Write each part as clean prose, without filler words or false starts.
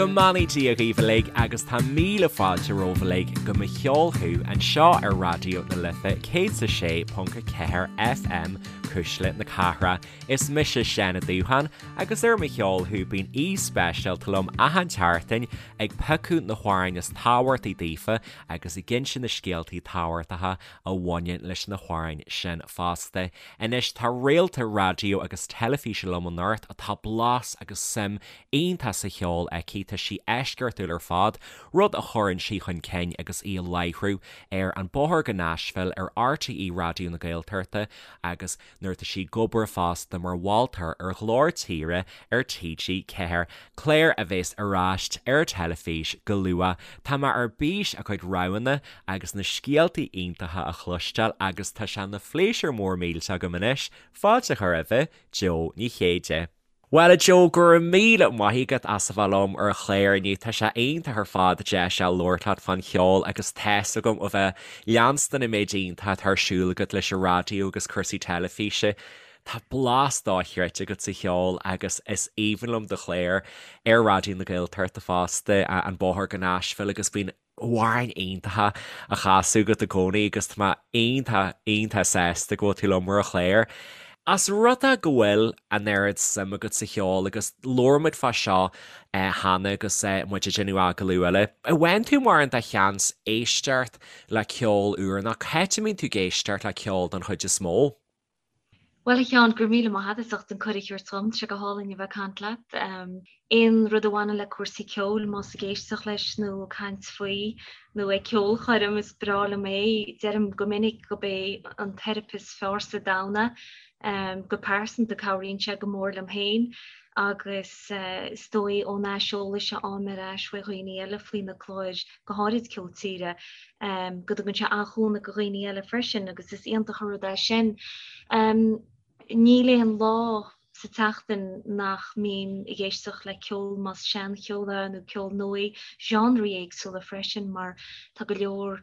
Go mbeannaí Dia dhaoibh uilig agus tá míle fáilte romhaibh uilig go Mo Cheol Thú anseo ar Raidió na Life 106.4 FM, Cuisle na Cathrach. Is mise Seán Ó Dúcháin agus ar Mo Cheol Thú bíonn aoi speisialta liom achan tseachtain ag piocadh na hamhráin is tábhachtaí daofa agus ag inse na scéaltaí tábhachtacha a bhaineann leis na hamhráin sin fosta. Anois tá réalta raidió agus teilifíse liom anocht atá blas agus suim iontach sa cheol aici, tá sí eisceachtúil ar fad, rud a chuireann sí chun cinn agus í ag láithriú ar An Bóthar go Nashville ar RTÉ Raidió na Gaeltachta agus nuair atá sí ag obair fosta mar mholtóir ar Ghlór Tíre ar TG4, clár a bheas ar ais ar teilifís go luath. Tá mé ar bís a cuid roghanna agus na scéaltaí iontacha a chloisteáil agus tá sé ina phléisiúr mór millteach agam anois fáilte a chur roimhe, Jó Ní Chéide. Bhuel a Jó, go raibh míle maith agat as a bheith liom ar an chlár inniu. Tá sé iontach ar fad deis a labhairt leat fán cheol agus tá's agam ó bheith leanstan an méid iontach atá ar siúl agat leis an raidió agus cúrsaí teilifíse. Tá blas dochreidte agat sa cheol agus is aoibhinn liom do chlár ar Raidió na Gaeltachta fosta, An Bóthar go Nashville agus bíonn amhráin iontacha á chasadh agat i gcónaí agus tá mé iontach, iontach sásta go bhfuil tú liom ar an chlár. As rud é go bhfuil an oiread suim agat sa cheol agus labhair muid fá seo cheana agus muid ag déanamh agallamh eile, an bhfaigheann tú mórán de sheans éisteacht le ceol úr nó cá háit a mbíonn tú ag éisteacht le ceol don chuid is mó? Bhuel, a Sheáin, go raibh míle maith agat as ucht an cuireadh a thabhairt dhom. Tá sé go hálainn a bheith ag caint leat. Aon rud a bhaineann le cúrsaí ceoil, más ag éisteacht leis nó ag caint faoi nó ag ceolchoirm, is breá liom é. Deirim go minic gurb é an teiripe is fearr sa domhan é. Go pearsanta, cabhraíonn sé go mór liom féin agus is dóigh ón aiseolas a fhaighim ar ais ó dhaoine eile faoi na cláir, go háirid Ceol Tíre, go dtugann sé an-chúnamh do dhaoine eile freisin agus is iontach an rud é sin. Níl aon lá sa tseachtain nach mbím ag éisteacht le ceol, más seancheol é nó ceol nua, genreí éagsúla freisin mar tá go leor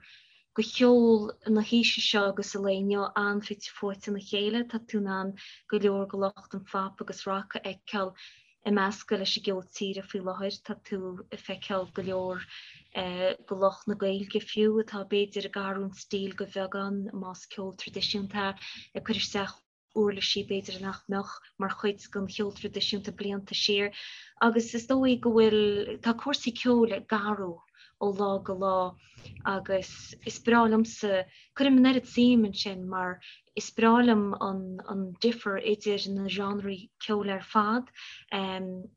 de cheol na haoise seo agus an lae inniu an-fhite fuaite ina chéile. Tá tú in ann go leor de lucht an phop agus rock a fheiceáil ag meascadh leis an gceol tíre faoi láthair. Tá tú ag feiceáil go leor de lucht na Gaeilge fiú, atá b'fhéidir ag athrú an stíl de bheagán, más ceol traidisiúnta é, ag cur isteach uirlisí b'fhéidir nach mbeadh mar chuid den cheol traidisiúnta blianta siar. Agus is dóigh go bhfuil, tá cúrsaí ceoil ag athrú ó lá go lá agus is breá liomsa, cuirim an oiread suim ansin mar Is breá liom an difear idir na genreí ceoil ar fad, a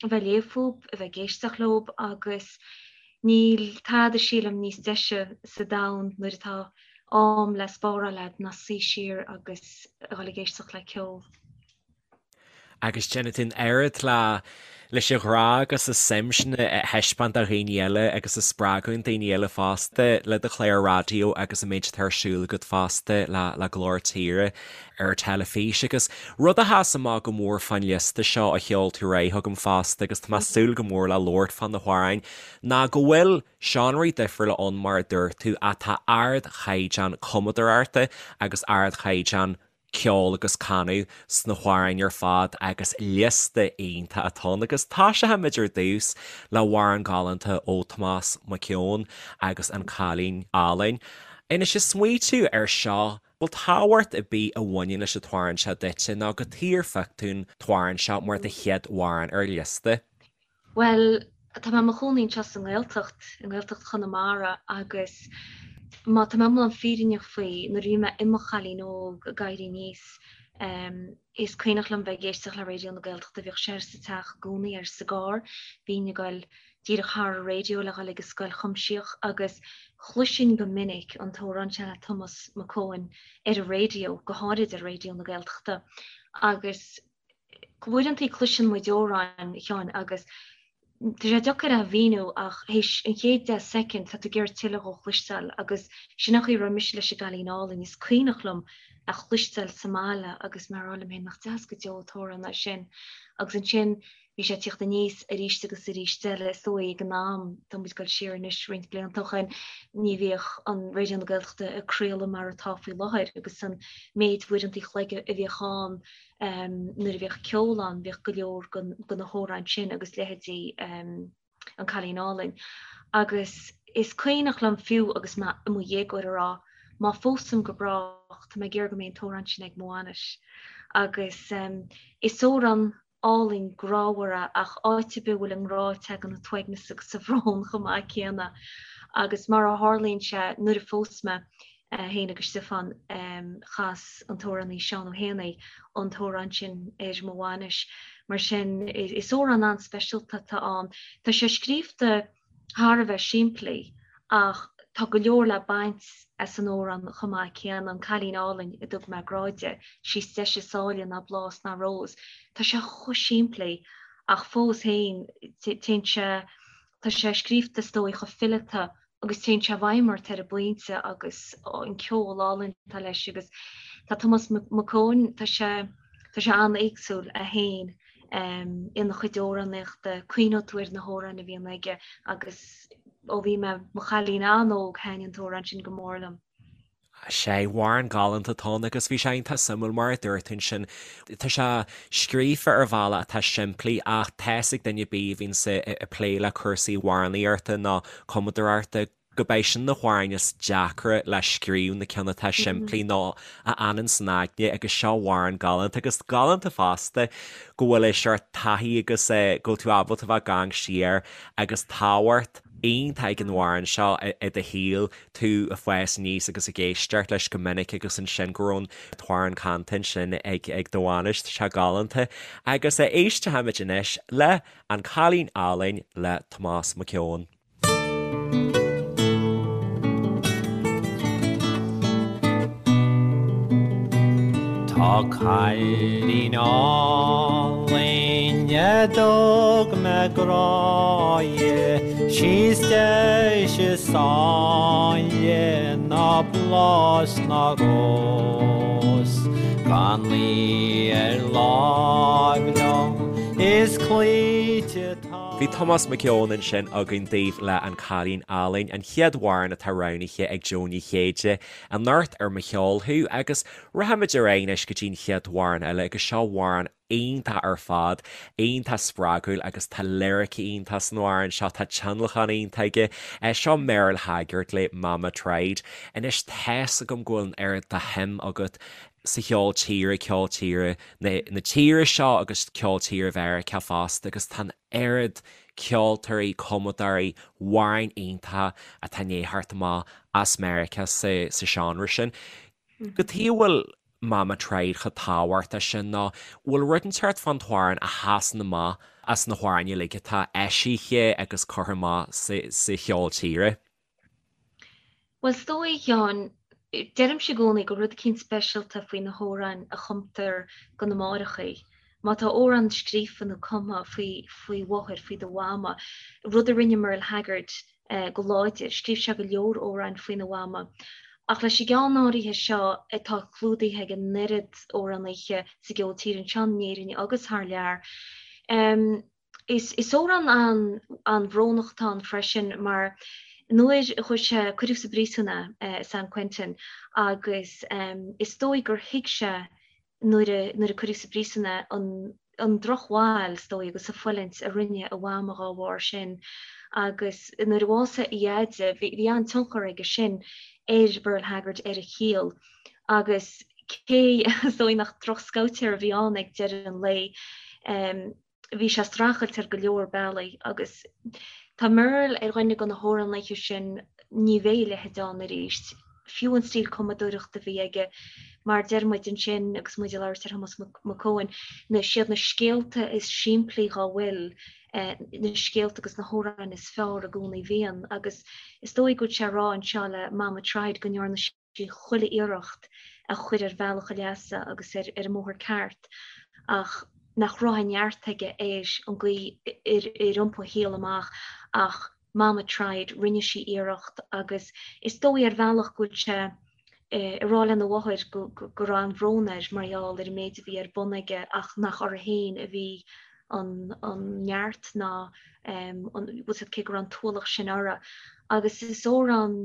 bheith ag léamh fúb, a bheith ag éisteacht leob agus níl tada sílim níos deise sa domhan nuair atá am le spáráil a'd ná suí siar agus a dhul ag éisteacht le ceol. Agus déanann tú an oiread le leis an ghrá agus an suim sin a thaispeáint do dhaoine eile agus a spreagadh daoine eile fosta le do chlár raidió agus an méid atá ar siúl agat fosta le le Glór Tíre ar teilifís. Agus rud a sheas amach go mór fán liosta seo a sheol tú ar aghaidh chugam fosta agus tá mé ag súil go mór le labhairt fá na hamhráin ná go bhfuil seánraí difriúla ann mar a dúirt tú ach tá ardchaighdeán cumadóireachta agus ardchaighdeán ceol agus canadh sna hamhráin ar fad agus liosta iontach atá ann agus toiseochaimid ar dtús le hamhrán galánta ó Tomás Mac Eoin agus An Cailín Álainn. Anois ag smaoitiú ar seo, bhfuil tábhacht ar bith a bhaineann leis an t-amhrán seo duitse nó cad chuige ar phioc tú an t-amhrán seo mar do chéad amhrán ar an liosta? Bhuel, tá mé i mo chónaí anseo sa nGaeltacht, i nGaeltacht Chonamara agus má tá mé iomlán fírinneach faoi, nuair a bhí mé i mo chailín óg ag éirí aníos, is cuimhneach liom bheith ag éisteacht le Raidió na Gaeltachta, bhíodh sé sa teach i gcónaí ar sa gcarr, bhínn ag goil díreach thar an raidió le dhul ag an scoil chuimsitheach agus chloisinn go minic an t-amhrán seo le Tomás Mac Eoin ar an raidió, go háirid ar Raidió na Gaeltachta agus Uaireantaí cloiseann muid amhráin, a Sheáin, agus tá sé deacair é a mhíniú ach théis an chéad 10 soicind tá tú ag iarraidh tuilleadh dhó a chloisteáil agus sin an chaoi a raibh mise leis an gCailín Álainn. Is cuimhneach liom é a chloisteáil sa mbaile agus mé ag rá liom féin nach deas go deo an t-amhrán é sin agus ansin bhí sé ag tíocht aníos arís agus arís eile is dóigh ag an am, tá muid ag dul siar anois roinnt blianta ó shin, ní bhíodh an Raidió na Gaeltachta ag craoladh mar atá faoi láthair agus an méid uaireantaí an chloig a bhíodh ann nuair a bhíodh ceol ann, bhíodh go leor de na hamhráin sin agus leithéidí. An Cailín Álainn. Agus is cuimhneach liom fiú agus mé i mo dhéagóir a rá, má phósaim go brách, tá mé ag iarraidh go mbeidh an t-amhrán sin ag mo bhainis. Agus is amhrán álainn grámhar é ach áit ar bith a bhfuil an grá tagann an t-uaigneas agus an bhrón chomh maith céanna. Agus mar a tharlaíonn sé, nuair a phós mé, féin agus Stiofán, chas an t-amhránaí Seán Ó hÉanaí an t-amhrán sin ar mo bhainis. Mar sin, is amhrán an-speisialta atá ann. Tá sé scríobhta thar a bheith simplí ach tá go leor le baint as an amhrán chomh maith céanna, An Cailín Álainn a dtug mé grá di, sí is deise is áille ná blás ná rós. Tá sé chomh simplí ach fós féin téann sé, tá sé scríobhta is dóigh chomh fileata agus téann sé i bhfeidhm ort ar an bpointe agus an ceol álainn atá leis agus tá Tomás Mac Eoin, tá sé, tá sé an-éagsúil é féin ina chuid amhránaíochta, cuimhneoidh tú ar na hamhráin a bhíonn aige agus ó bhí mé mo chailín an-óg thaitin an t-amhrán sin go mór liom. Sea, amhrán galánta atá ann agus bhí sé iontach suimiúil mar a dúirt tú ansin, tá sé scríofa ar bhealach atá simplí ach tá's ag duine ar bith a bhíonns ag plé le cúrsaí amhránaíochta nó cumadóireachta go mbeidh sin na hamhráin is deacra le scríobh, na cinn atá simplí nó a fhanann san aigne agus seo amhrán galánta agus galánta fosta go bhfuil é seort taithí agus go bhfuil tú ábalta bheith ag amharc siar agus tábhacht iontach ag an amhrán seo i do shaol tú ag fás aníos agus ag éisteacht leis go minic agus ansin go raibh an t-amhrán canta ansin ag ag do bhainis, tá sé galánta. Agus éistfimid anois le An Cailín Álainn le Tomás Mac Eoin. Tá cailín álainn a dtug mé grá di, 'Sí is deise is áille ná blás ná rós. Gan í ar láimh liom is cloíte tá. Bhí Tomás Mac Eoin ansin againn daoibh le An Cailín Álainn, an chéad amhrán atá roghnaithe ag Jó Ní Chéide anocht ar Mo Cheol Thú agus rachaimid ar aghaidh anois go dtí an chéad amhrán eile agus seo amhrán iontach ar fad, iontach spreagúil agus tá liricí iontach san amhrán seo, tá tionlacan iontach aige. Seo Merle Haggard le Mama Tried. Anois tá's agam go bhfuil an oiread de shuim agat sa cheol tíre, ceol tíre na tíre seo agus ceol tíre Mheiriceá fosta agus tá an oiread ceoltóirí, cumadóirí, amhráin iontacha atá i ndiaidh theacht amach as Meiriceá sa seánra sin. Cad chuige a bhfuil Mama Tried chomh tábhachtach sin nó bhfuil rud inteacht fán t-amhrán a sheasann amach as na hamhráin uilig atá eisithe agus curtha amach sa cheol tíre? Bhuel, is dóigh, a Sheáin, deirimse i gcónaí go bhfuil rud eicínt speisialta faoi na hamhráin a chumtar do na máithreachaí. Má tá amhrán scríofa nó cumtha faoi faoi mháthair, faoi do mhama, rud a rinne Merle Haggard go láidir, scríobh sé go leor amhráin faoina mhama. Ach leis an gceann áirithe seo atá clúdaithe ag an oiread amhránaithe sa gceol tíre anseo in Éirinn agus thar lear, Is amhrán an-bhrónach atá ann freisin mar nuair a chuaigh sé, cuireadh sa bpríosún é i San Quentin agus is dóigh gur thuig sé nuair a nuair a cuireadh sa bpríosún é an an drochbhail is dóigh agus an fulaingt a rinne a mhama dhá bharr sin agus nuair a bhásaigh a dheaide bhí bhí an-tionchar aige sin ar Merle Haggard ar a shaol agus cé is dóigh nach drochscabhtéir a bhí ann ag deireadh an lae bhí sé ag streachailt ar go leor bealaí agus tá Merle ar dhuine de na hamhránaithe sin, ní bheidh a leithéid ann arís, fiú an stíl cumadóireachta a bhí aige, mar deir muid ansin agus muid ag labhairt ar Thomás Mac Eoin, na, siad na scéalta is simplí dhá bhfuil, na scéalta agus na hamhráin is fearr i gcónaí bhíonn agus is dóigh go bhfuil sé ag rá anseo le Mama Tried go ndearna sí chuile iarracht a chur ar bhealach a leasa agus ar an mbóthar ceart ach nach raibh an neart aige ar an gcaoi ar iompaigh a shaol amach ach Mama tried, rinne sí iarracht agus is dóigh ar bhealach go bhfuil sé ag rá lena mháthair go raibh an-bhrón air mar gheall ar an méid a bhí ar bun aige ach nach uirthi féin a bhí an neart ná an, bhfuil cé go raibh an t-ualach sin uirthi. Agus is amhrán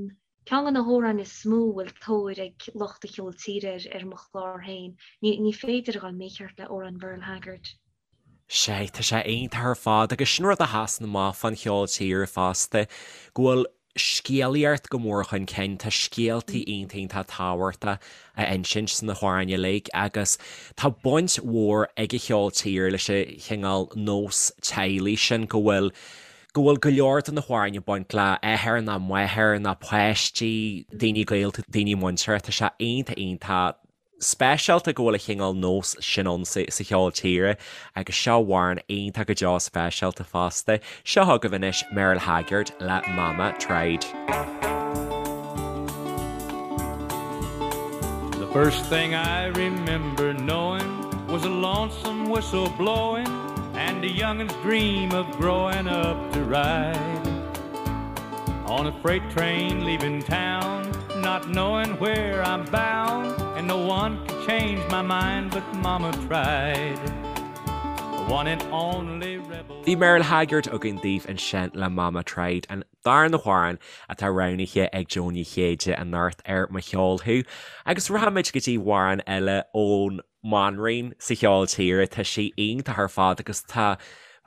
Ceann de na hamhráin is mó a bhfuil tóir ag lucht an cheoil tíre air ar mo chlár féin. Ní féidir a dhul mícheart le amhrán Mherle Haggard. Sea, tá sé iontach ar fad agus sin rud a sheasann amach fán cheol tíre fosta, go bhfuil scéalaíocht go mór chun cinn, tá scéaltaí iontach iontach tábhachtach á insint sna hamhráin uilig agus tá baint mhór ag an cheol tíre leis an chineál nós teaghlaigh sin go bhfuil go bhfuil go leor de na hamhráin ag baint le athair ná máthair ná páistí, daoine gaolta, daoine muinteartha, tá sé iontach iontach speisialta go bhfuil an chineál nós sin ann sa cheol tíre agus seo amhrán iontach go deo speisialta fosta. Seo chugaibh anois Merle Haggard le Mama Tried. The first thing I remember knowing was a lonesome whistle blowing and a youngin's dream of growing up to ride on a freight train leaving town not knowing where I'm bound and no one could change my mind but mama tried the one and only rebel Bhí Merle Haggard againn daoibh ansin le Mama Tried, an darna hamhrán atá roghnaithe ag Joan Ní Chéide anocht ar Mo Cheol Thú. Agus rachaimid go dtí amhrán eile ón mbanríon sa cheol tíre, tá sí iontach ar fad agus tá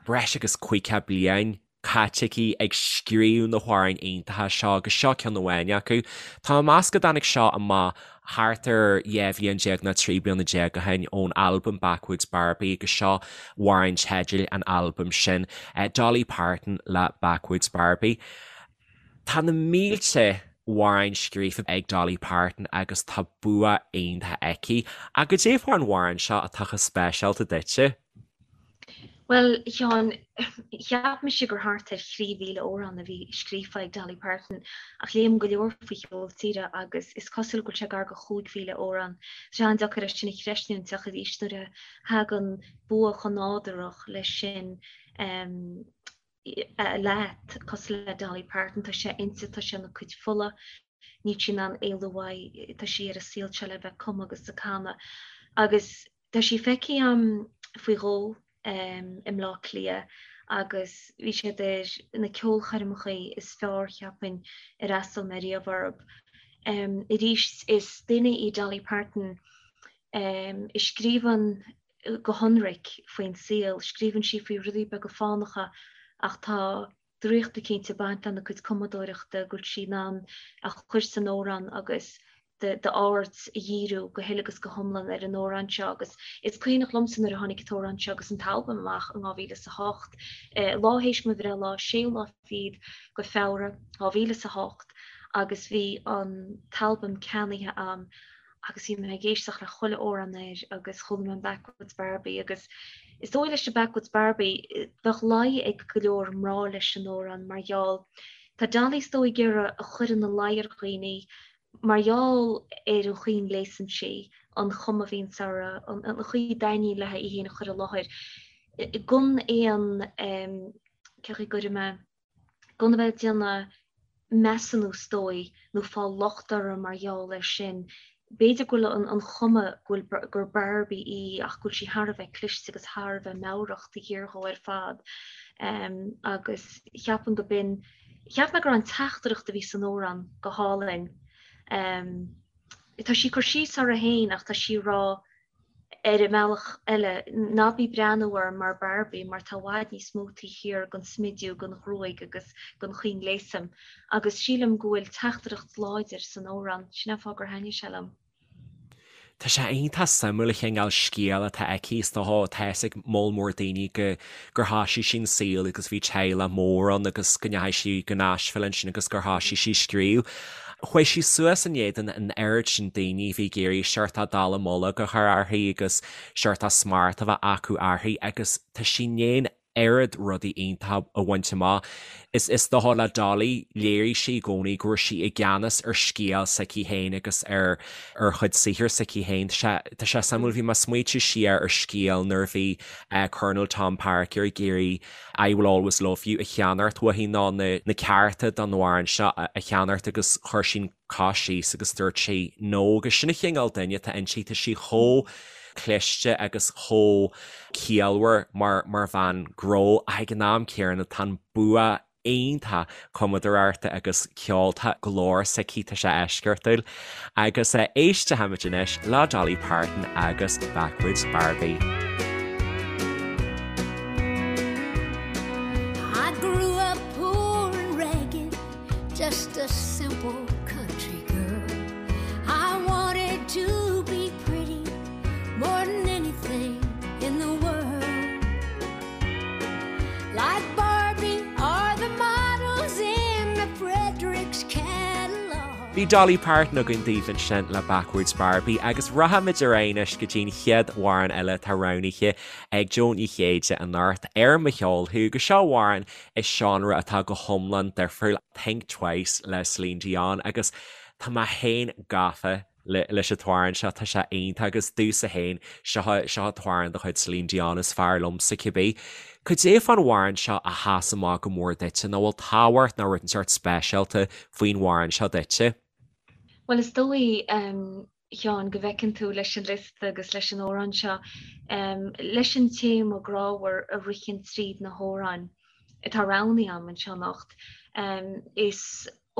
breis agus 50 bliain caite aici ag scríobh na hamhráin iontacha seo agus seo ceann amháin acu. Tá mé ag meas go dtáinig seo amach thart ar 12 bhliain nó 13 bliana ó shin ón albam Backwoods Barbie agus seo amhrán teidil an albaim sin, Dolly Parton le Backwoods Barbie. Tá na mílte amhráin scríofa ag Dolly Parton agus tá bua iontach aici. Ach goidé fán amhrán seo atá chomh speisialta duitse? Bhuel, a Sheáin, cheap mise gur thart ar 3,000 amhrán a bhí scríofa ag Dolly Parton, ach léim go leor faoi cheol tíre agus is cosúil go bhfuil sé gar go 5,000 amhrán. Tá sé an-deacair é sin a chreistiúint ach arís nuair a thagann bua chomh nádúrach leis sin leat, cosúil le Dolly Parton, tá sé inti, tá sé ina cuid fola, níl sí in ann éalú uaidh, tá sí ar an saol seo le bheith ag cumadh agus ag canadh. Agus tá sí feicthe agam faoi dhó i mBleá Cliath agus bhí siad ar na ceolchoirmeacha is fearr, cheapfainn, ar fhreastail mé riamh orthu. Arís, is duine í Dolly Parton a scríobhann go hionraic faoin saol, scríobhann sí faoi rudaí beaga fánacha ach tá draíocht eicínt ag baint lena cuid cumadóireachta, go bhfuil sí in ann a chur san amhrán agus d'aird a dhíriú go huile agus go hiomlán ar an amhrán seo agus is cuimhneach liomsa nuair a tháinig an t-amhrán seo agus an t-albam amach in 2008, lá théis mo bhreithlá, séú lá fichead go Feabhra 2008 agus bhí an t-albam ceannaithe a'm agus bhí mé ag éisteacht le chuile amhrán air agus chuala mé an Backwoods Barbie agus is dóigh leis an Backwoods Barbie bheadh luí ag go leor mná leis an amhrán mar gheall tá Dolly is dóigh ag iarraidh a chur ina luí ar dhaoine mar gheall ar an chaoi a ngléasann sí, an chuma a bhíonns uirthi, an chaoi a dtaitníonn léi í féin a chur i láthair gan aon cén chaoi a gcuirfidh mé gan a bheith ag déanamh measúnú is dóigh, nó fáil locht uirthi mar gheall air sin. B'fhéidir go bhfuil an chuma go bhfuil gur Barbie í ach go bhfuil sí thar a bheith cliste agus thar a bheith meabhrach taobh thiar dhó ar fad. Agus cheapaim go b'in, cheap mé go raibh an teachtaireacht a bhí san amhrán go hálainn. Tá sí ag cur síos uirthi féin ach tá sí ag rá Ar an mbealach eile, ná bí ag breathnú orm mar Barbie mar tá i bhfad níos mó taobh thiar den smidiú, den ghruaig agus den chaoi a ngléasaim. Agus sílim go bhfuil teachtaireacht láidir san amhrán. Sin an fáth gur thaitnigh sé liom. Tá sé iontach suimiúil an chineál scéal atá aici. Is dócha, tá fhios ag moll mór daoine go gur thoisigh sí an saol agus bhí teaghlach mór ann agus go ndeachaigh sí go Nashville ansin agus gur thoisigh sí ag scríobh. Chuaigh sí suas in éadan an oiread sin daoine a bhí ag iarraidh seort dallamullóg a chur uirthi agus seort smacht a bheith acu uirthi agus tá sí i ndiaidh an oiread rudaí iontacha a bhaint amach. Is is dócha le Dolly, léirigh sí i gcónaí go raibh sí i gceannas ar scéal s'aici féin agus ar ar chuid saothair s'aici féin. Tá sé tá sé suimiúil, bhí mé ag smaoitiú siar ar scéal nuair a bhí Colonel Tom Parker ag iarraidh I Will Always Love You a cheannacht uaithi nó na na cearta don amhrán seo a cheannacht agus chuir sí an cos síos agus dúirt sí no agus sin an chineál duine atá inti, tá sí chomh cliste agus chomh ciallmhar mar mar bhean gnó ach ag an am céanna tá an bua iontach cumadóireachta agus ceoil, tá glór s'aici, tá sé eisceachtúil. Agus éistfimid anois le Dolly Parton agus Backwoods Barbie. Bhí Dolly Parton againn daoibh ansin le Backwards Barbie agus rachaimid ar aghaidh anois go dtí'n chéad amhrán eile atá roghnaithe ag Jó Ní Chéide anocht ar Mo Cheol Thú agus seo amhrán i seánra atá go hiomlán difriúil, Think Twice le Celine Dion agus tá mé féin gafa leis an t-amhrán seo, tá sé iontach agus domhsa féin, seo seo an t-amhrán de chuid Celine Dion is fearr liomsa cibé. Cad é fán amhrán seo a sheas amach go mór duitse, nó bhfuil tábhacht nó rud inteacht speisialta faoin amhrán seo duitse? Bhuel is dóigh, a Sheáin, go bhfeiceann tú leis an liosta agus leis an amhrán seo, leis an téama grámhar a ritheann tríd na hamhráin atá roghnaithe agam anseo anocht, is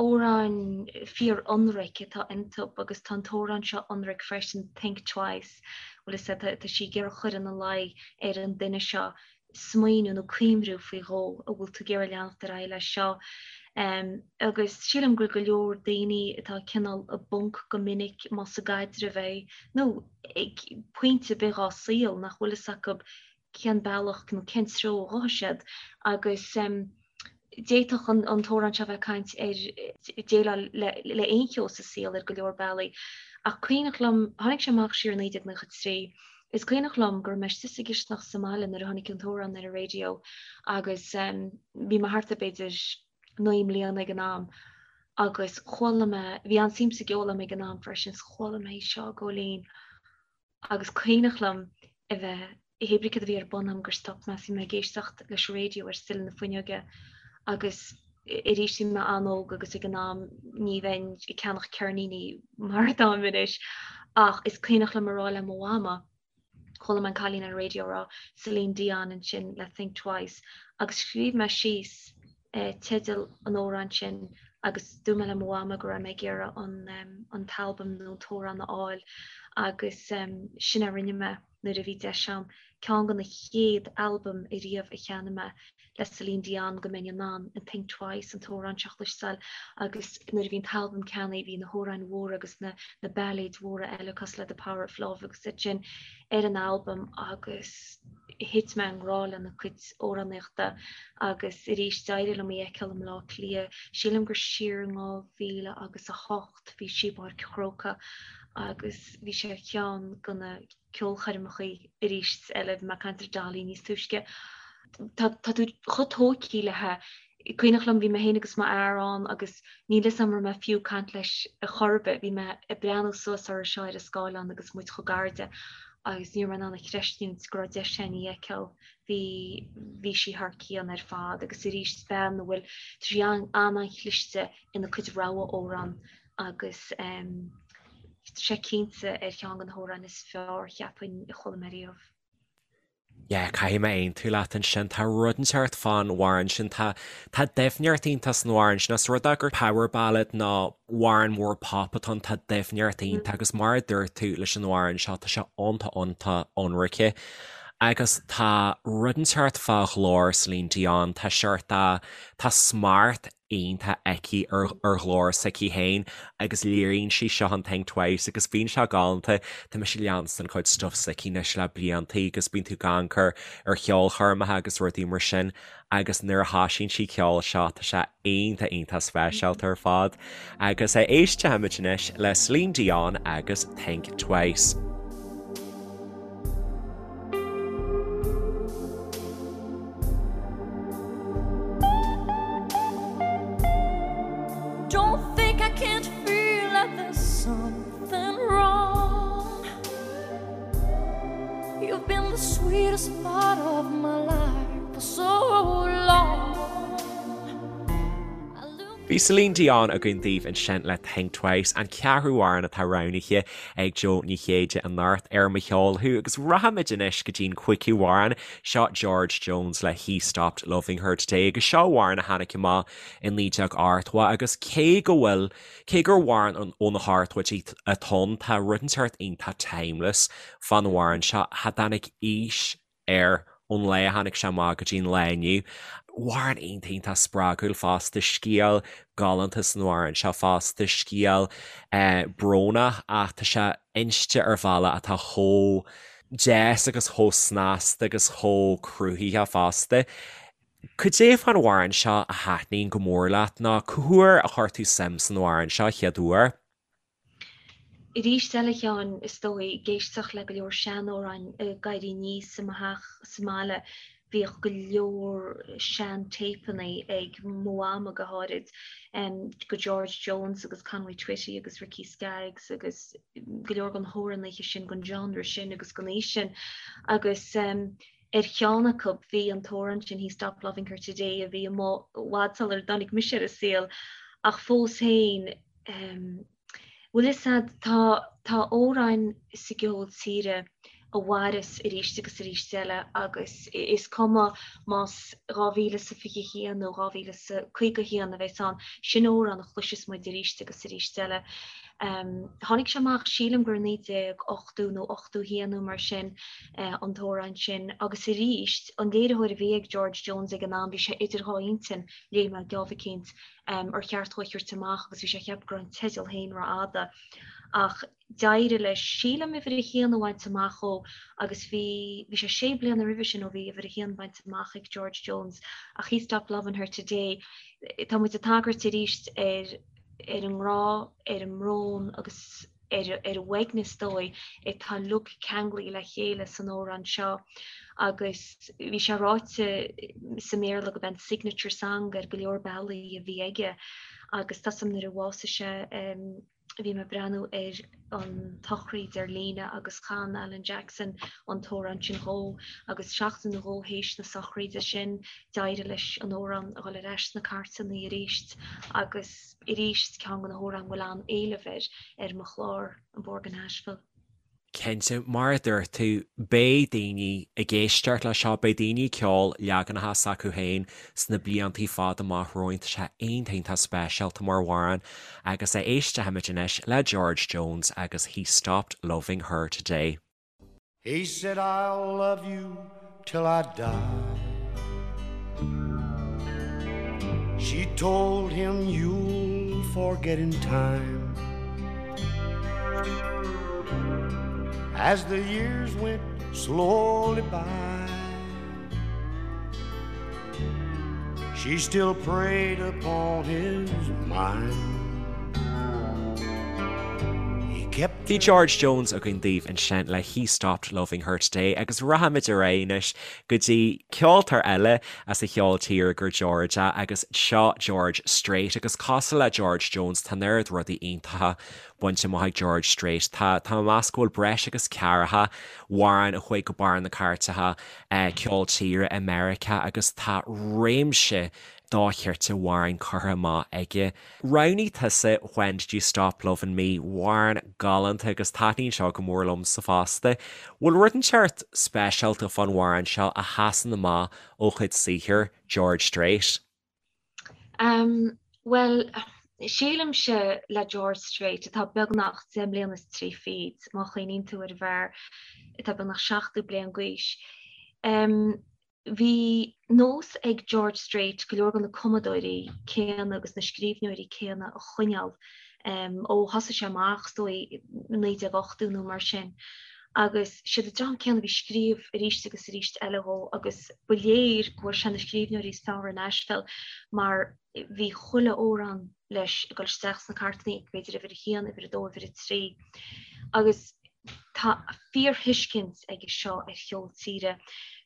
Amhráin fíor-ionraic atá iontu agus tá an t-amhrán seo ionraic freisin, Think Twice, bhfuil fhios a'd, tá sí ag iarraidh cur ina luí ar an duine seo smaoineamh nó cuimhniú faoi dhó, an bhfuil tú ag iarraidh leanacht ar aghaidh leis seo. Agus sílim go bhfuil go leor daoine atá cineál i bponc go minic, más i gcaidreamh é nó ag pointe ar bith dhá saol, nach bhfuil fhios acu cén bealach nó cén treo a ghabhfaidh siad agus d'fhéadfadh an t-amhrán seo bheith ag caint ar déileáil le aon cheo sa saol ar go leor bealaí. Ach cuimhneach liom, tháinig sé amach siar i 1993, is cuimhneach liom go raibh mé istigh sa gcisteanach sa mbaile nuair a tháinig an t-amhrán ar an raidió agus bhí mé thart ar b'fhéidir 9 mbliana ag an am agus chuala mé, bhí an-suim sa gceol agam ag an am freisin, 's chuala mé seo ag gabháil fhoinn Agus cuimhneach liom a bheith, hé brí cad a bhí ar bun agam gur stop mé, bhí mé ag éisteacht leis an raidió ar sill na fuinneoige agus arís bhí mé an-óg agus ag an am ní bheinn ag ceannach ceirníní mar atáim anois ach is cuimhneach liom a rá le mo mhama, chuala mé an cailín ar an raidió ag rá Celine Dion ansin le Think Twice agus scríobh mé síos teideal an amhráin sin agus dúirt mé le mo mhama go raibh mé ag iarraidh an t-albam nó an t-amhrán a fháil agus sin a rinne mé nuair a bhí deis agam. Ceann de na chéad albaim ariamh a cheannaigh mé le Celine Dion go mbeinn in ann an Think Twice, an t-amhrán seo a chloisteáil agus nuair a bhí an t-albam ceannaithe bhí na hamhráin mhóra agus na na bailéid mhóra eile cosúil le The Power of Love agus iad sin ar an albam agus thit mé i ngrá lena cuid amhránaíochta agus arís d'éirigh liom í a fheiceáil i mBleá Cliath, sílim gur siar in 2008 bhí sí i bPáirc an Chrócaigh agus bhí sé ar cheann de na ceolchoirmeacha arís eile, bhí mé ag caint ar Dolly níos túisce. Tá tú chomh tógtha léi Cuimhneach liom, bhí mé féin agus m'fhear ann agus níl 'fhios a'm raibh mé fiú ag caint leis ar chor ar bith, bhí mé ag breathnú suas uirthi seo ar an scáileán agus muid chomh gar di agus ní raibh mé in ann a chreistiúint go raibh deis againn í a fheiceáil. Bhí, bhí sí thar cionn ar fad agus arís bean a bhfuil, tá sí an-an-chliste ina cuid rogha amhrán agus tá sé cinnte ar cheann de na hamhráin is fearr, cheapfainn, a chuala mé riamh. Yeah, caithfidh mé aontú leat ansin. Tá rud inteacht fán amhrán sin. Tá, tá doimhneacht iontach san amhrán sin. Os rud é gur power ballad nó amhrán mór pop atá ann, tá doimhneacht iontach agus mar a dúirt tú leis an amhrán seo, tá sé iontach iontach ionraice. Agus tá rud inteacht fá ghlór Celine Dion, tá seort, tá smacht iontach aici ar ghlór s'aici féin agus léiríonn sí seo in Think Twice agus bíonn sé galánta. Tá mise ag leanstan cuid stuff s'aici anois le blianta agus bíonn tú ag amharc ar cheolchoirmeacha agus rudaí mar sin agus nuair a thosaíonn sí ceol seo tá sé iontach iontach speisialta ar fad. Agus éistfimid anois le Celine Dion agus Think Twice. Don't think I can't feel that there's something wrong You've been the sweetest part of my life for so long Bhí Celine Dion againn daoibh ansin le Think Twice, an ceathrú amhrán atá roghnaithe ag Jo Ní Chéide anocht ar Mo Cheol Thú agus rachaimid anois go dtí'n cúigiú amhrán, seo George Jones le He Stopped Loving Her Today agus seo amhrán a tháinig amach i 1980 agus cé go bhfuil, cé gur amhrán ó na hochtóidí atá ann, tá rud inteacht iontach timeless fán amhrán seo, cha dtáinig aois air ón lá a tháinig sé amach go dtí an lá inniu. Amhrán iontach iontach spreagúil fosta, scéal galánta san amhrán seo fosta, scéal brónach ach tá sé inste ar bhealach atá chomh deas agus chomh snasta agus chomh cruthaitheach fosta. Cad é fán amhrán seo a thaitníonn go mór leat nó cá huair a chuir tú suim san amhrán seo chéad uair? Arís eile, a Sheáin, is dóigh, ag éisteacht le go leor seanamhráin ag éirí aníos i mo theach sa mbaile, bhíodh go leor sean-téipeanna ag mo mhama go háirid, go George Jones agus Conway Twitty agus Ricky Skaggs agus go leor den hamhránaithe sin, den genre sin agus den aois sin. Agus ar cheann acu bhí an t-amhrán sin He Stopped Loving Her Today a bhí amuigh i bhfad sular dtáinig mise ar an saol ach fós féin, Bhfuil fhios a'd, tá, tá amhráin sa gceol tíre a mhaireas arís agus arís eile agus is cuma más 2021 nó 2051 a bheas ann, sin amhrán a chloisfeas muid arís agus arís eile. Tháinig sé amach, sílim gur 1980 nó 81 nó mar sin, an t-amhrán sin agus arís, an léiritheoir a bhí ag George Jones ag an am, bhí sé idir dhá intinn, léigh mé geábh eicínt, ar cheart dhó é a thabhairt amach agus bhí sé ag ceapadh go raibh an teideal féin rófhada. Ach d'éirigh leis, sílim, uimhir a haon a bhaint amach dhó agus bhí, bhí sé sé bliana roimhe sin ó bhí uimhir a haon bainte amach ag George Jones ach He Stopped Lovin' Her Today, tá muid ag tagairt arís ar, ar an ngrá, ar an mbrón agus. ar an uaigneas is dóigh, atá uilig ceanglaithe le chéile san amhrán seo agus bhí sé ráite sa mBéarla gurb é an signature song ar go leor bealaí a bhí aige agus tá 'fhios a'm nuair a bhásaigh sé bhí mé ag breathnú ar an tsochraid ar líne agus chan Alan Jackson an t-amhrán sin dhó agus seachtain nó dhó théis na sochraide sin d'éirigh leis an amhrán a dhul ar ais sna cairteanna arís agus arís ceann de na hamhráin a bhfuil an-éileamh air ar mo chlár, An Bóthar go Nashville. Cinnte, mar a dúirt tú, beidh daoine ag éisteacht leis seo, beidh daoine ag ceol leaganacha s'acu féin sna bliantaí fada amach romhainn. Tá sé iontach iontach speisialta mar amhrán agus éistfimid anois le George Jones agus He Stopped Loving Her Today. He said I'll love you till I die. She told him you'll forget in time. As the years went slowly by, she still preyed upon his mind. He kept Bhí George Jones againn daoibh ansin le He Stopped Loving Her Today agus rachaimid ar aghaidh anois go dtí ceoltóir eile as an cheol tíre gur George é agus seo George Strait agus cosúil le George Jones tá an oiread rudaí iontacha bainte amach ag George Strait. Tá tá mé ag meas go bhfuil breis agus ceathracha amhrán a chuaigh go barr na cairteacha ceol tíre i Meiriceá agus tá réimse dochreidte amhrán curtha amach aige. Roghnaigh tusa When Did You Stop Lovin' Me, amhrán galánta agus taitníonn seo go mór liomsa fosta. Bhfuil rud inteacht speisialta fán amhrán seo a sheasann amach ó chuid saothair George Strait? Umm, bhuel, sílimse le George Strait, atá beagnach 10 mbliana is 30, má chuimhníonn tú ar an bhfear atá beagnach 70 bliain d'aois, umm, Bhí nós ag George Strait go leor de na cumadóirí céanna agus na scríbhneoirí céanna a choinneáil ó thosaigh sé amach, is dóigh, i 1980 nó mar sin. Agus siad an dream céanna a bhí ag scríobh arís agus arís eile dhó agus ba léir go bhfuair sé na scríbhneoirí is fearr i Nashville mar bhí chuile amhrán leis ag dul isteach sna cairteanna, b'fhéidir uimhir a haon, uimhir a dó, uimhir a trí. Agus tá fíorthuiscint aige seo ar cheol tíre.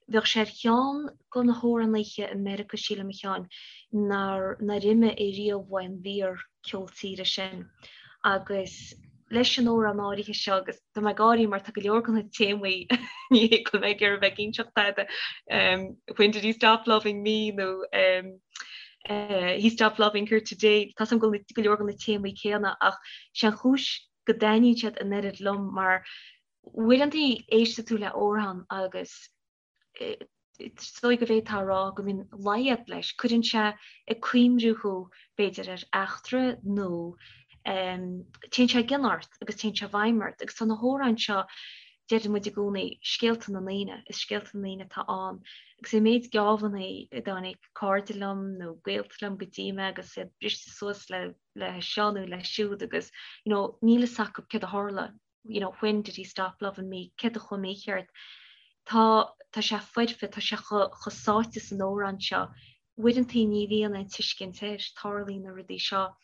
Bheadh sé ar cheann de na hamhránaithe i Meiriceá, sílim, a Sheáin, nár nár imigh ariamh uaidh an bhfíor-cheol tíre sin. Agus leis an amhrán áirithe seo, agus tá mé ag gáirí mar tá go leor de na téamaí, ní hé go bhfuil mé ag iarraidh bheith ag inseacht tada, When did he stop loving me nó He stopped loving her today, tá 's agam go bhfuil go leor de na téamaí céanna ach sé an chúis go dtaitníonn siad an oiread liom mar uaireanta éisteann tú le amhrán agus is dóigh go bhféadfá a rá go mbíonn leid leis, cuireann sé ag cuimhniú thú b'fhéidir ar eachtra nó téann sé i gcion ort agus téann sé i bhfeidhm ort agus tá na hamhráin seo, deireann muid i gcónaí, scéalta na ndaoine, is scéalta na ndaoine atá ann agus an méid geábhanna a dtáinig cairde liom nó gaolta liom go dtí mé agus iad briste suas le le seo nó le siúd agus you know níl fhios acu céard a tharla, you know when did he stop loving me, céard a chuaigh mícheart. Tá, tá sé foirfe, tá sé chomh sáite san amhrán seo. Uaireantaí ní bhíonn aon tuiscint air, tarlaíonn na rudaí seo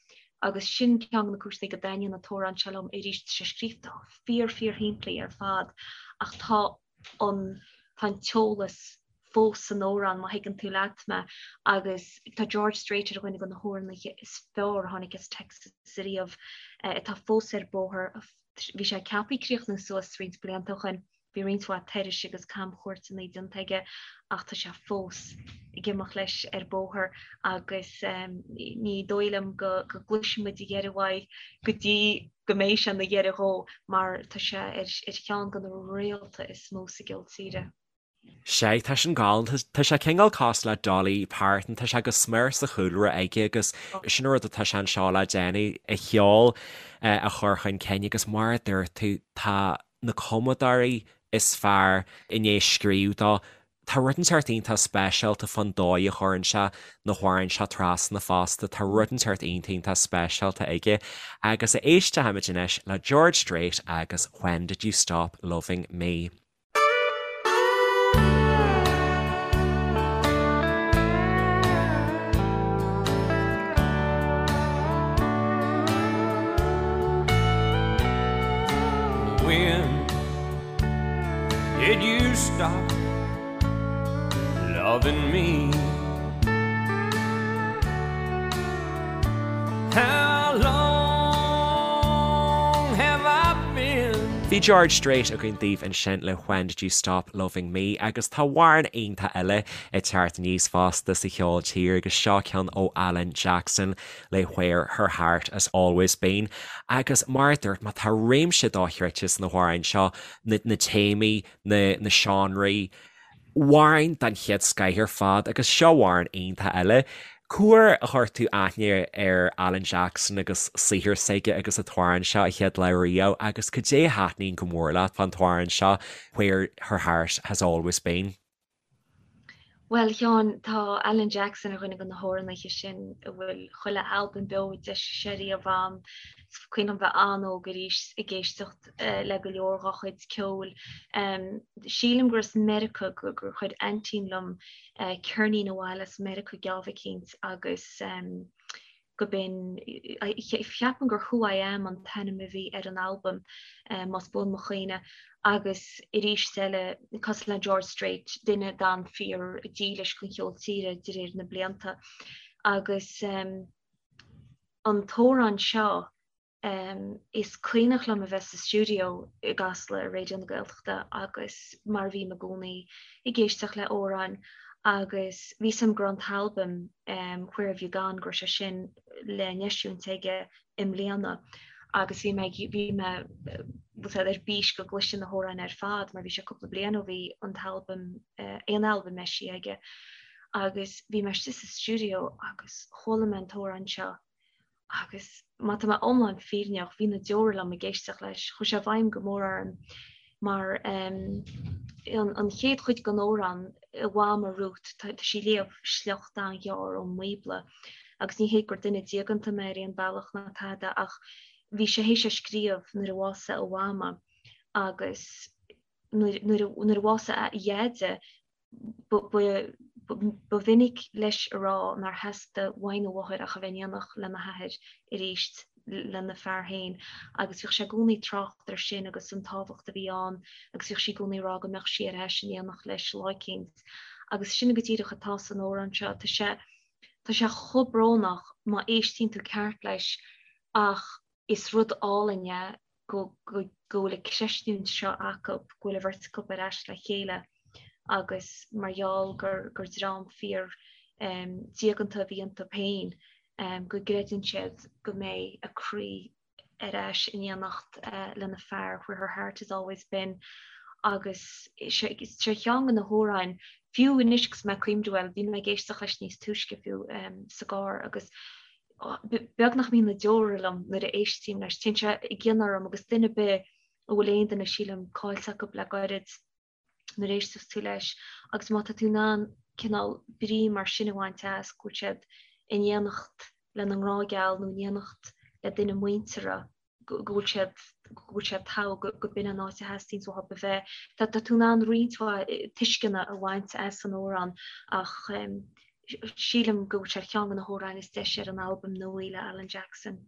agus sin ceann de na cúiseanna go dtaitníonn an t-amhrán seo liom arís, tá sé scríofa fíor fíor shimplí ar fad ach tá an, tá an t-eolas fós san amhrán má thuigeann tú leat mé agus tá George Strait ar dhuine de na hamhránaithe is fearr a tháinig as Texas ariamh atá fós ar bóthar, bhí sé ceaptha críochnú suas roinnt blianta ó shin. Bhí roinnt mhaith turais agus camchuairteanna déanta aige ach tá sé fós ag imeacht leis ar bóthar agus ní dóigh liom go gcloisfidh muid a dheireadh uaidh go dtí go mbeidh sé ina dheireadh dhó mar tá sé ar cheann de na réalta is mó sa gceol tíre. Sea, tá sin galánta. Tá sé cineál cosúil le Dolly Parton, tá sé go smior sa chúlra aige agus sin an rud atá sé anseo le déanamh, a cheol a chur chun cinn agus mar a dúirt tú, tá na cumadóirí is fearr i ndiaidh scríobh dó. Tá rud inteacht iontach speisialta fán dóigh a chuireann sé na hamhráin seo trasna fosta, tá rud inteacht iontach iontach speisialta aige. Agus éistfimid anois le George Strait agus When Did You Stop Loving Me? When did you stop loving me? How long have I been? Bhí George Strait againn daoibh ansin le When Did You Stop Loving Me agus tá amhrán iontach eile ag teacht aníos fosta sa cheol tíre agus seo ceann ó Alan Jackson le Where Her Heart Has Always Been agus mar a dúirt mé tá réimse dochreidte sna hamhráin seo, na téamaí, na na seánraí, amhráin den chéad scoith ar fad agus seo amhrán iontach eile. Cá huair a chuir tú aithne ar Alan Jackson agus saothar s'aige agus an t-amhrán seo a chéad lá riamh agus cad é a thaitníonn go mór leat fán t-amhrán seo Where Her Heart Has Always Been? Bhuel, a Sheáin, tá Alan Jackson ar dhuine de na hamhránaithe sin a bhfuil chuile albam beo a d'eisigh sé riamh a'm. Is cuimhin liom bheith an-óg arís ag éisteacht le go leor dhá chuid ceoil. Sílim gur as Meiriceá gur chuir aintín liom ceirnín abhaile as Meiriceá geábh eicínt agus go b'in, cheapfainn gur Who I Am an t-ainm a bhí ar an albam, más buan mo chuimhne, agus arís eile, cosúil le George Strait, duine a d'fhan fíor dílis don cheol tíre de réir na blianta. Agus an t-amhrán seo, Is cuimhneach liom a bheith sa stiúideo i gCasla i Raidió na Gaeltachta agus mar a bhím i gcónaí ag éisteacht le amhráin agus bhí 'fhios a'm go raibh an t-albam Where Have You Gone go raibh sé sin le n-eisiúint aige i mbliana agus bhí mé bhí mé ar bís go gcloisfinn na hamhráin ar fad mar bhí sé cúpla bliain ó bhí an t-albam aon albam eisithe aige agus bhí mé istigh sa stiúideo agus chuala mé an t-amhrán seo Agus má tá mé iomlán fírinneach, bhí na deora liom ag éisteacht leis. Chuaigh sé i bhfeidhm go mór orm mar an chéad chuid den amhrán, a mhama Ruth, tá sí ag léamh sliocht an-ghearr ón mBíobla. Agus ní hé gur duine diaganta mé ar aon bhealach ná tada ach bhí sé théis é scríobh nuair a bhásaigh a mhama agus nuair a bhásaigh a dheaide, Ba mhinic leis a rá nár theastaigh uaidh nó mháthair ach a bheith in éineacht lena hathair arís, lena fear féin, agus bhíodh sé i gcónaí ag trácht air sin agus an tábhacht a bhí ann agus bhíodh sí i gcónaí ag rá go mbeadh sí ar ais in éineacht leis lá eicínt. Agus sin go díreach atá san amhrán seo. Tá sé, tá sé chomh brónach má éistíonn tú ceart leis ach is rud álainn é go bhfuil an chreistiúint seo acu, go bhfuil an bheirt acu ar ais le chéile agus mar gheall gur gur dream fíor diaganta a bhí iontu féin, go gcreideann siad go mbeidh a croí ar ais in éineacht lena fear, where her heart has always been. Agus sé cheann de na hamhráin, fiú anois agus mé ag cuimhniú, bhuel, bhí mé ag éisteacht leis níos túisce fiú sa gcarr agus beag nach mbíonn na deora liom nuair a éistím leis. Téann sé i gcion orm agus duine ar bith a bhfuil aon duine, sílim, caillte acu le gairid nuair a éisteas tú leis agus má tá tú in ann cineál brí mar sin a bhaint as, go bhfuil siad in éineacht lena ngrá geal nó in éineacht le duine muinteartha, go bhfuil siad. go bhfuil sé togha go b'in an áit a theastaíonns uathu a bheith. Tá tú in ann roinnt mhaith tuisceana a bhaint as an amhrán ach sílim go bhfuil sé ar cheann de na hamhráin is deise ar an albam nua le Alan Jackson.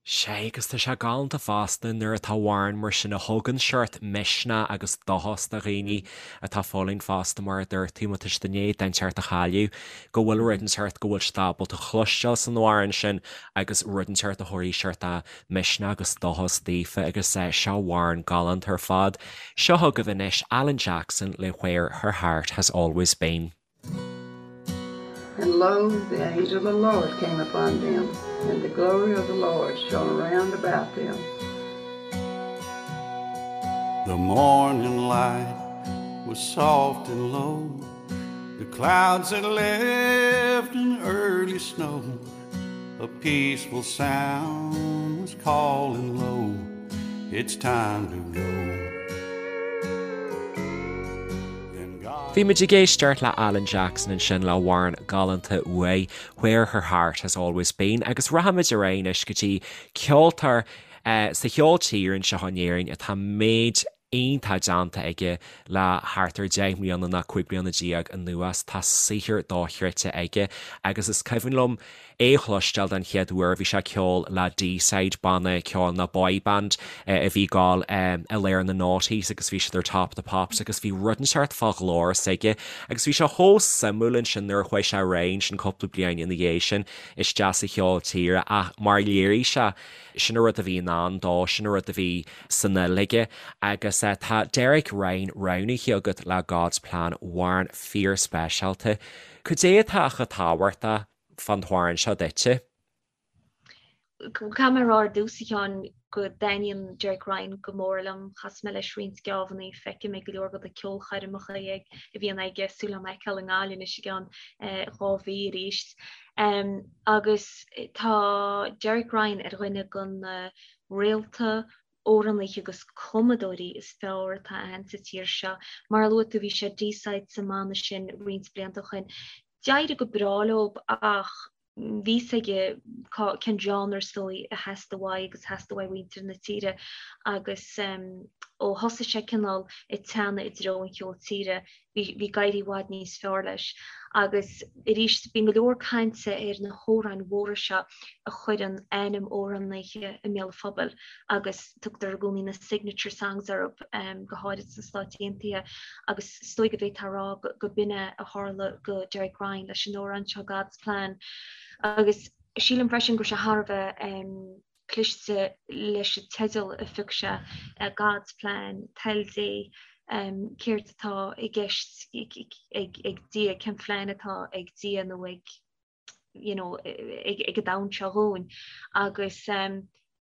Sea, agus tá sé galánta fosta nuair atá amhrán mar sin a thugann seort misneach agus dóchas do dhaoine atá ag fulaingt fosta mar a dúirt tú, má tá siad i ndiaidh duine inteacht a chailleadh, go bhfuil rud inteacht go bhfuil siad ábalta chloisteáil san amhrán sin agus rud inteacht a thabharfaidh seort misneach agus dóchas daofa agus seo amhrán galánta ar fad. Seo chugaibh anois Alan Jackson le Where Her Heart Has Always Been. And lo, the angel of the Lord came upon them, and the glory of the Lord shone round about them. The morning light was soft and low. The clouds had left an early snow. A peaceful sound was calling low. It's time to go. Bhí muid ag éisteacht le Alan Jackson ansin le amhrán galánta uaidh, Where Her Heart Has Always Been agus rachaimid ar aghaidh anois go dtí ceoltóir sa cheol tíre anseo in Éirinn atá méid iontach déanta aige le thart ar 10 mbliana nó 15 bliana anuas. Tá saothar dochreidte aige agus is cuimhin liom é a chloisteáil den chéad uair, bhí sé ag ceol le Deeside, banna ceoil nó boy band a bhí ag gabháil i lár na noughties agus bhí siad ar Top of the Pops agus bhí rud inteacht fá ghlór s'aige agus bhí sé chomh suimiúil ansin nuair a chuaigh sé ar aghaidh ansin cúpla bliain ina dhiaidh sin isteach sa cheol tíre ach mar a léirigh sé, sin an rud a bhí in ann dó, sin an rud a bhí san fhuil aige agus tá Derek Ryan roghnaithe agat le God's Plan, amhrán fíorspeisialta. Cad é atá chomh tábhachtach fán t-amhrán seo duitse? Caithfidh mé a rá ar dtús, a Sheáin, go dtaitníonn Derek Ryan go mór liom. Chas mé leis roinnt geábhannaí, feicim é ag go leor de na ceolchoirmeacha a bhíonn aige, súil agam é a fheiceáil i nGaillimh anois i gceann 2 mhí arís. Agus tá Derek Ryan ar dhuine de na réalta amhránaithe agus cumadóirí is fearr atá ann sa tír seo. Mar a luaigh tú, bhí sé Deeside sa mbanna sin roinnt blianta ó shin. D'éirigh go breá leo ach bhí fhios aige cén genre is dóigh a theastaigh uaidh agus a theastaigh uaidh mhuintir na tíre agus ó thosaigh sé cineál ag teannadh i dtreo an cheoil tíre bhí ag éirí i bhfad níos fearr leis. Agus arís, bíonn go leor cainte ar na hamhráin mhóra seo a chuireann ainm amhránaithe i mbéal an phobail agus tugtar i gcónaí na signature songs orthu, go háirid sna Stáit Aontaithe, agus is dóigh go bhféadfá a rá go b'in é a tharla go Derek Ryan leis an amhrán seo God's Plan. Agus sílim freisin go raibh sé thar a bheith cliste leis an teideal a phioc sé, God's Plan, Toil Dé, céard atá i gceist ag Dia, cén phlean atá ag Dia nó ag you know, ag an domhan seo dhúinn. Agus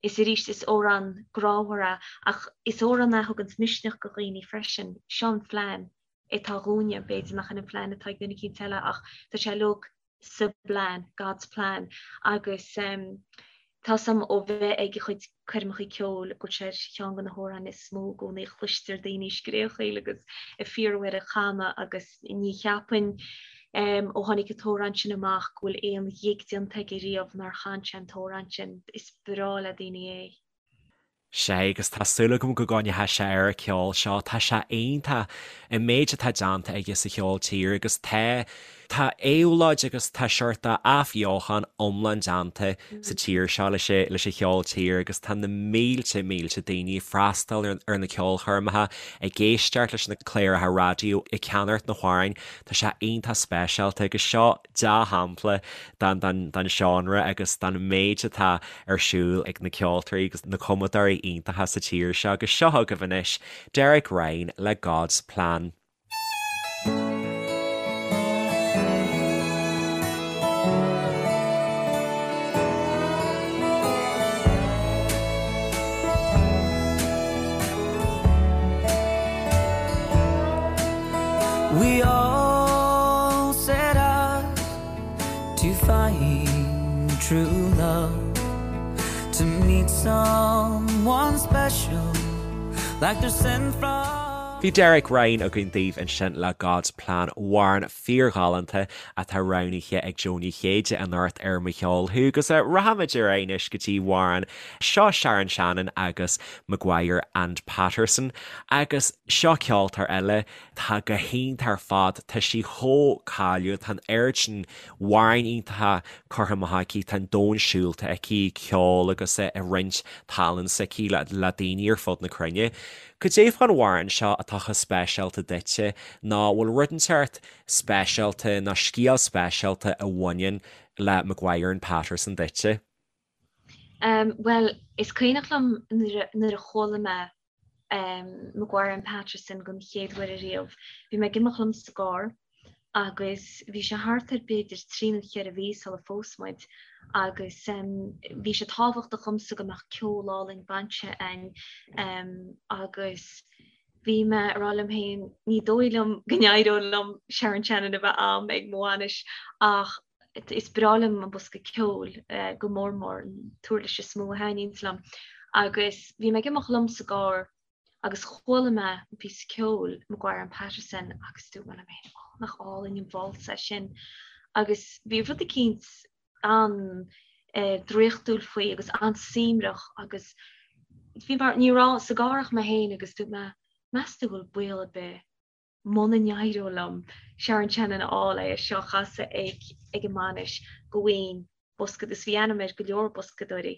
is arís is amhrán grámhar é ach is amhrán é a thuganns misneach go dhaoine freisin. Seo an phlean atá dhúinne, b'fhéidir nach in an phlean atá ag duine eicínt eile ach tá sé uilig sa bplean, God's plan, agus tá 's a'm ó bheith ag a chuid coirmeacha ceoil go bhfuil sé ar cheann de na hamhráin is mó i gcónaí a chloistear daoine ag scréachaíl agus ag fiafraí air a chanadh agus ní cheapfainn ó tháinig an t-amhrán sin amach go bhfuil aon ghig déanta aige riamh nár chan sé an t-amhrán sin. Is breá le daoine é. Sea, agus tá súil agam go gcoinneoidh sé ar an cheol seo. Tá sé iontach, an méid atá déanta aige sa cheol tíre agus tá, tá éabhlóid agus tá seort athbheochan iomlán déanta sa tír seo leis an, leis an cheol tíre agus tá na mílte, mílte daoine ag freastal ar, ar na ceolchoirmeacha, ag éisteacht leis na cláracha raidió, ag ceannacht na hamhráin. Tá sé iontach speisialta agus seo, dea-shampla den seánra agus den méid atá ar siúl ag na ceoltóirí agus na cumadóirí iontacha sa tír seo agus seo chugaibh anois Derek Ryan le God's Plan. We all set out to find true love To meet someone special Like they're sent from above. Bhí Derek Ryan againn daoibh ansin le God's Plan, amhrán fíorghalánta atá roghnaithe ag Jó Ní Chéide anocht ar Mo Cheol Thú. Agus rachaimid ar aghaidh anois go dtí amhrán seo Sharon Shannon agus Maguire and Patterson. Agus seo ceoltóir eile atá go hiontach ar fad, tá sí chomh cáiliúil, tá an oiread sin amhráin iontacha curtha amach aici, tá an domhan siúlta aici, ceol agus ag roinnt tallann s'aici le daoine ar fud na cruinne. Cad é fán amhrán seo atá chomh speisialta duitse, nó bhfuil rud inteacht speisialta nó scéal speisialta a bhaineann le Maguire and Patterson duitse? Bhuel, is cuimhneach liom nuair a chuala mé Maguire and Patterson don chéad uair ariamh. Bhí mé ag imeacht liom sa gcarr agus bhí sé thart ar b'fhéidir trí nó cheithre mhí sula phós muid agus bhí sé tábhachtach dhomsa go mbeadh ceol álainn bainise againn agus bhí mé ag rá liom féin ní dóigh liom go n-éireodh liom Sharon Shannon a bheith a'm ag mo bhainis ach is breá liom an bosca ceoil go mór mór, an t-uirlis is mó a thaitníonns liom agus bhí mé ag imeacht liom sa gcarr agus chuala mé an píosa ceoil, Maguire and Patterson, agus dúirt mé liom féin, oh, nach álainn an válsa é sin. Agus bhí rud eicínt an-draíochtúil faoi agus an-suaimhneach agus bhí mar, ní raibh sa gcarr ach mé féin agus dúirt mé, meas tú bhfuil baol ar bith muna n-éireodh liom Sharon Shannon a fháil é seo a chasadh ag ag an mbainis go bhfaighinn bosca agus bhí ainm ar go leor boscadóirí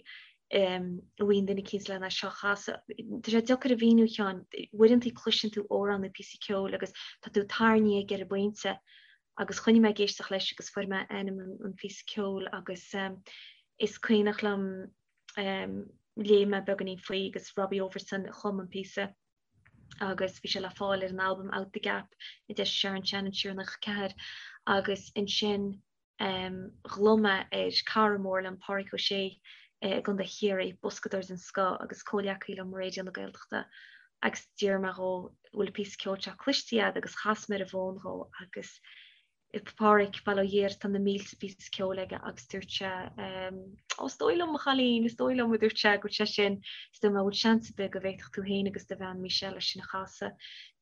go bhfaighinn duine eicínt lena seo a chasadh. Tá sé deacair a mhíniú a Sheáin, uaireanta cloiseann tú amhrán nó píosa ceoil agus tá tú tarraingthe aige ar an bpointe agus choinnigh mé ag éisteacht leis agus fuair mé ainm an phíosa ceoil agus is cuimhneach liom léigh mé beagáinín faoi agus Robbie Overson a chum an píosa. agus bhí sé le fáil ar an albam Out the Gap a d'eisigh Sharon Shannon siar i 94 agus ansin ghlaoigh mé ar cara mór liom, Páraic Ó Sé i gContae Chiarraí, boscadóir den scoth agus comhghleacaí liom i Raidió na Gaeltachta agus d'iarr mé dhó bhfuil an píosa ceoil seo cloiste agat agus chas mé ar an bhfón dhó agus Páraic, bail ó Dhia air, tá na mílte píosa ceoil aige agus dúirt sé, Ó, is dóigh liom, a chailín, is dóigh liom, a dúirt sé, go bhfuil sé sin, is dúirt mé, bhfuil seans ar bith go bhféadfadh tú féin agus do bhean Michelle é sin a chasadh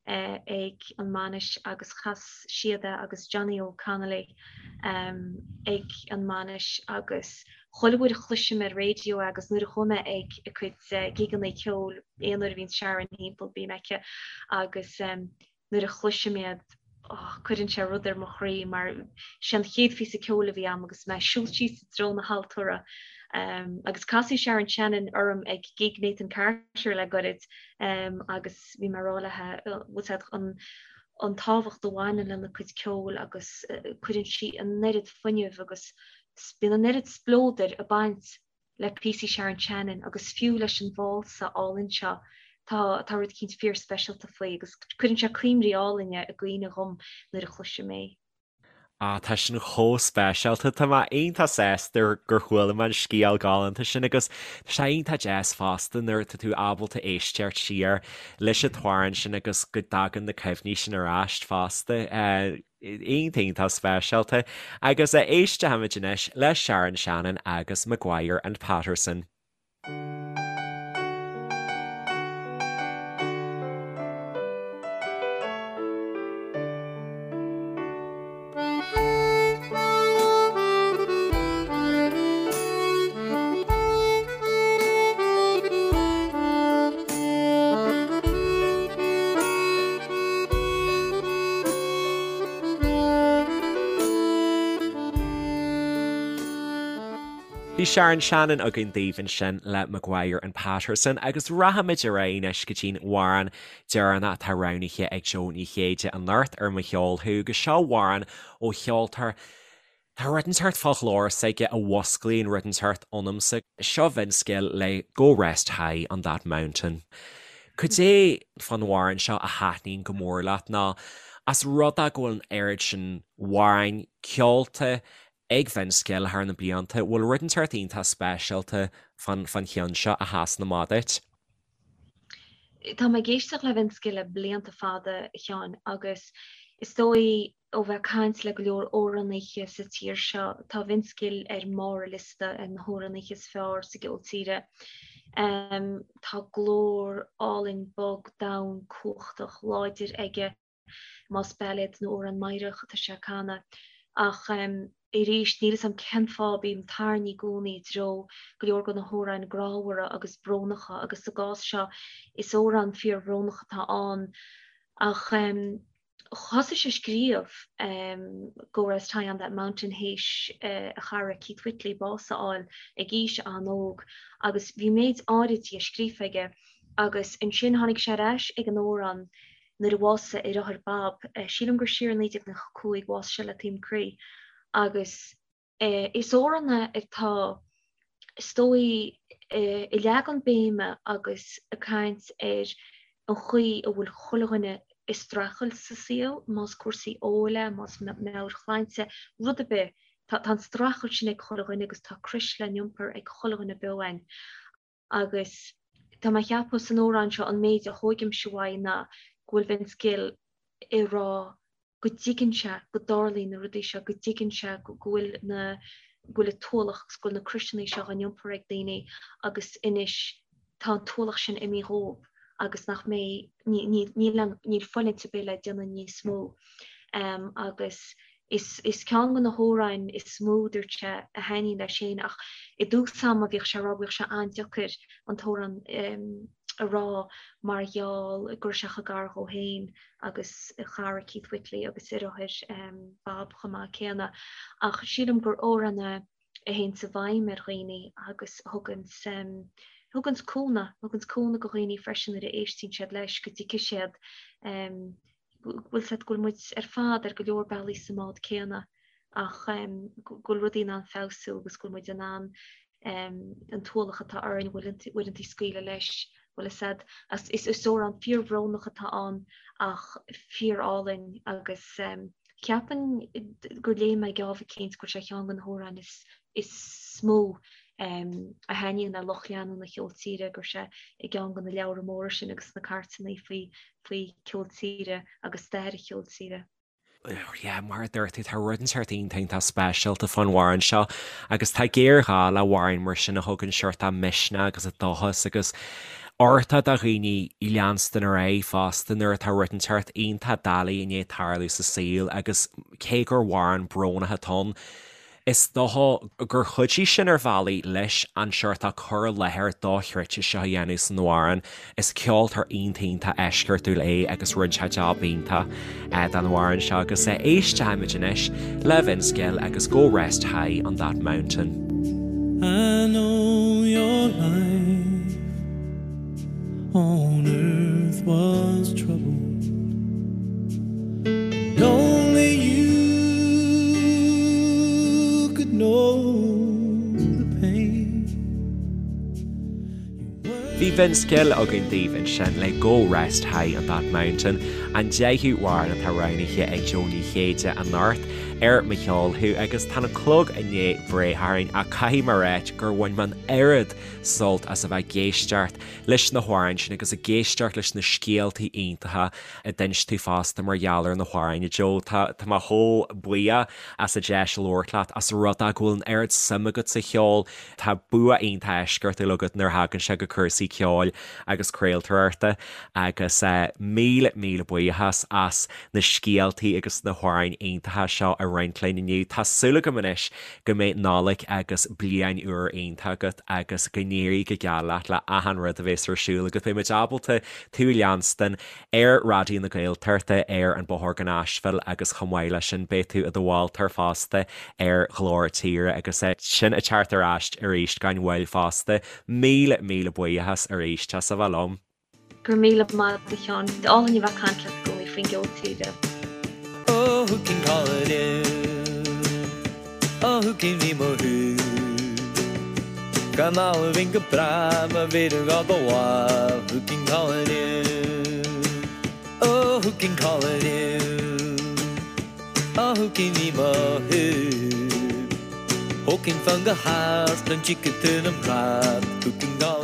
ag an mbainis agus chas siad é agus Johnny Óg Connolly ag an mbainis agus chuile uair a chloisim ar raidió é agus nuair a chuaigh mé ag a cuid gigeanna ceoil, aon uair a bhíonn Sharon thimpeall bím aici agus nuair a chloisim iad, oh, cuireann sé rud ar mo chroí mar sé an chéad phíosa ceoil a bhí a'm agus mé ag siúl síos i dtreo na haltóra. Um, agus casadh Sharon Shannon orm ag gig Nathan Carter le goirid um, agus bhí mé ag rá léi bhfuil an an tábhacht a bhaineann lena cuid ceoil agus uh, cuireann sí an oiread fuinnimh agus bíonn an oiread spleodair ag baint le píosaí Sharon Shannon agus fiú leis an válsa álainn seo, tá tá rud eicínt fíor-speisialta faoi agus cuireann sé cuimhní álainne i gcuimhne dhom nuair a chloisim é. Ah, tá sin chomh speisialta. Tá mé iontach sásta gur chuala mé an scéal galánta sin agus tá sé iontach deas fosta nuair atá tú ábalta éisteacht siar leis an t-amhrán sin agus go dtagann na cuimhní sin ar ais fosta. Iontach iontach speisialta. Agus éistfimid anois le Sharon Shannon agus Maguire and Patterson. Bhí Sharon Shannon againn daoibh ansin le Maguire and Patterson agus rachaimid ar aghaidh anois go dtí'n amhrán deireanach atá roghnaithe ag Jó Ní Chéide anocht ar Mo Cheol Thú agus seo amhrán ó cheoltóir Tá rud inteacht fá ghlór s'aige a mhusclaíonn rud inteacht ionamsa. Seo Vince Gill le Go Rest High on That Mountain. Cad é fán amhrán seo a thaitníonn go mór leat nó as rud é go bhfuil an oiread sin amhráin ceolta ag Vince Gill thar na blianta, bhfuil rud inteacht iontach speisialta fán cheann seo a sheasann amach duit? Tá mé ag éisteacht le Vince Gill le blianta fada, a Sheáin, agus is dóigh ó bheith ag caint le go leor amhránaithe sa tír seo, tá Vince Gill ar mbarr an liosta ar na hamhránaithe is fearr sa gceol tíre. Tá glór álainn bog domhain cumhachtach láidir aige, más bailéad nó amhrán meidhreach atá sé ag canadh. Ach arís, níl 'fhios a'm cén fáth, bím tarraingthe i gcónaí i dtreo go leor de na hamhráin grámhara agus brónacha agus sa gcás seo is amhrán fíorbhrónach atá ann. Ach thosaigh sé ag scríobh Go Rest High on That Mountain théis a chara Keith Whitley bás a fháil ag aois an-óg agus bhí méid áirid dhe scríofa aige agus ansin tháinig sé ar ais ag an amhrán nuair a bhásaigh a dheartháir Bob, sílim gur siar i 1995, bhásaigh sé le taom croí agus Is amhrán é atá, is dóigh, ag leagan béime agus ag caint ar an chaoi a bhfuil chuile dhuine ag streachailt sa saol, más cúrsaí óil é, más meabhairshláinte, rud ar bith, tá an streachailt sin ag chuile dhuine agus tá crois le n-iompar ag chuile dhuine beo againn. Agus tá mé ag ceapadh san amhrán seo an méid a thógaimse uaidh ná go bhfuil Vince Gill ag rá go dtuigeann sé go dtarlaíonn na rudaí seo, go dtuigeann sé go bhfuil na, go bhfuil an t-ualach agus go bhfuil na croiseanna seo á n-iompar ag daoine agus anois tá an t-ualach sin imithe dhóibh agus nach mbeidh, níl, níl fulaingt ar bith le déanamh níos mó. Agus is, is ceann de na hamhráin is mó, dúirt sé, a thaitníonn leis féin ach i dtús ama bhíodh sé ag rá, bhíodh sé an-deacair an t-amhrán a rá mar gheall go raibh sé chomh gar dhó féin agus a chara Keith Whitley agus a dheartháir Bob chomh maith céanna. Ach sílim gur amhrán é a théanns i bhfeidhm ar dhaoine agus a thuganns, thuganns cúnamh, thuganns cúnamh go dhaoine freisin nuair a éistíonn siad leis, go dtuigfidh siad go bhfuil siad, go bhfuil muid ar fad ar go leor bealaí sa mbád céanna ach go bhfuil rudaí in ann feabhsú agus go bhfuil muid in ann an t-ualach atá orainn uaireanta scaoileadh leis, bhfuil fhios a'd. Is amhrán fíorbhrónach atá ann ach fíorálainn agus ceapaim gur léigh mé geábh eicínt go bhfuil sé ar cheann de na hamhráin is mó a thaitníonn le lucht leanúna cheol tíre, go raibh sé i gceann de na leabhra móra sin agus na cairteanna faoi faoi cheol tíre agus stair an cheoil tíre. Yeah, mar a dúirt tú, tá rud inteacht iontach iontach speisialta fán amhrán seo agus tá géarghá le hamhráin mar sin a thugann seort misneach agus dóchas agus uchtach do dhaoine leanstan ar aghaidh fosta nuair atá rud inteacht iontach doiligh i ndiaidh tarlú sa saol agus cé gur amhrán brónach atá ann, Is dócha gur chuidigh sin ar bhealaí leis an seort cur i láthair dochreidte seo a dhéanamh san amhrán. Is ceoltóir iontach iontach eisceachtúil é agus rinne sé jab iontach den amhrán seo agus éistfimid anois le Vince Gill agus Go Rest High on That Mountain. I know your life on earth was troubled And only you could know the pain Bhí Vince Gill againn daoibh ansin le Go Rest High on That Mountain, an deichiú amhrán atá roghnaithe ag Jó Ní Chéide anocht ar Mo Cheol Thú agus tá an clog i ndiaidh breith orainn ach caithfidh mé a ráit gur bhain mé an oiread sult as a bheith ag éisteacht leis na hamhráin sin agus ag éisteacht leis na scéaltaí iontacha a d'inis tú fosta mar gheall ar na hamhráin, a Joe. Tá mé chomh buíoch as an deis labhairt leat, as rud é go bhfuil an oiread suim agat sa cheol. Tá bua iontach eisceachtúil agat nuair a thagann sé go cúrsaí ceoil agus craoltóireachta agus míle míle buíochas as na scéaltaí agus na hamhráin iontacha seo a roinnt linn inniu. Tá súil agam anois go mbeidh Nollaig agus Bliain Úr iontach agat agus go n-éirí go geal leat le achan rud a bhéas ar siúl agat. Beidh muid ábalta tú a leanstan ar Raidió na Gaeltachta ar an Bóthar go Nashville agus chomh maith leis sin beidh tú i do mholtóir fosta ar Ghlór Tíre agus sinn ag teacht ar ais arís gan mhoill fosta. Míle míle buíochas arís as a bheith liom. Go raibh míle maith agat a Sheáin. Is álainn a bheith ag caint leat i gcónaí faoin gceol tíre. Oh who can call it in? Oh who can be mo who? Gan almhain go breá má bhíonn gá do mhaith Who can call it in? Oh who can call it in? Oh who can be mo who? Who can fan go hard an chicken to an rad Who can call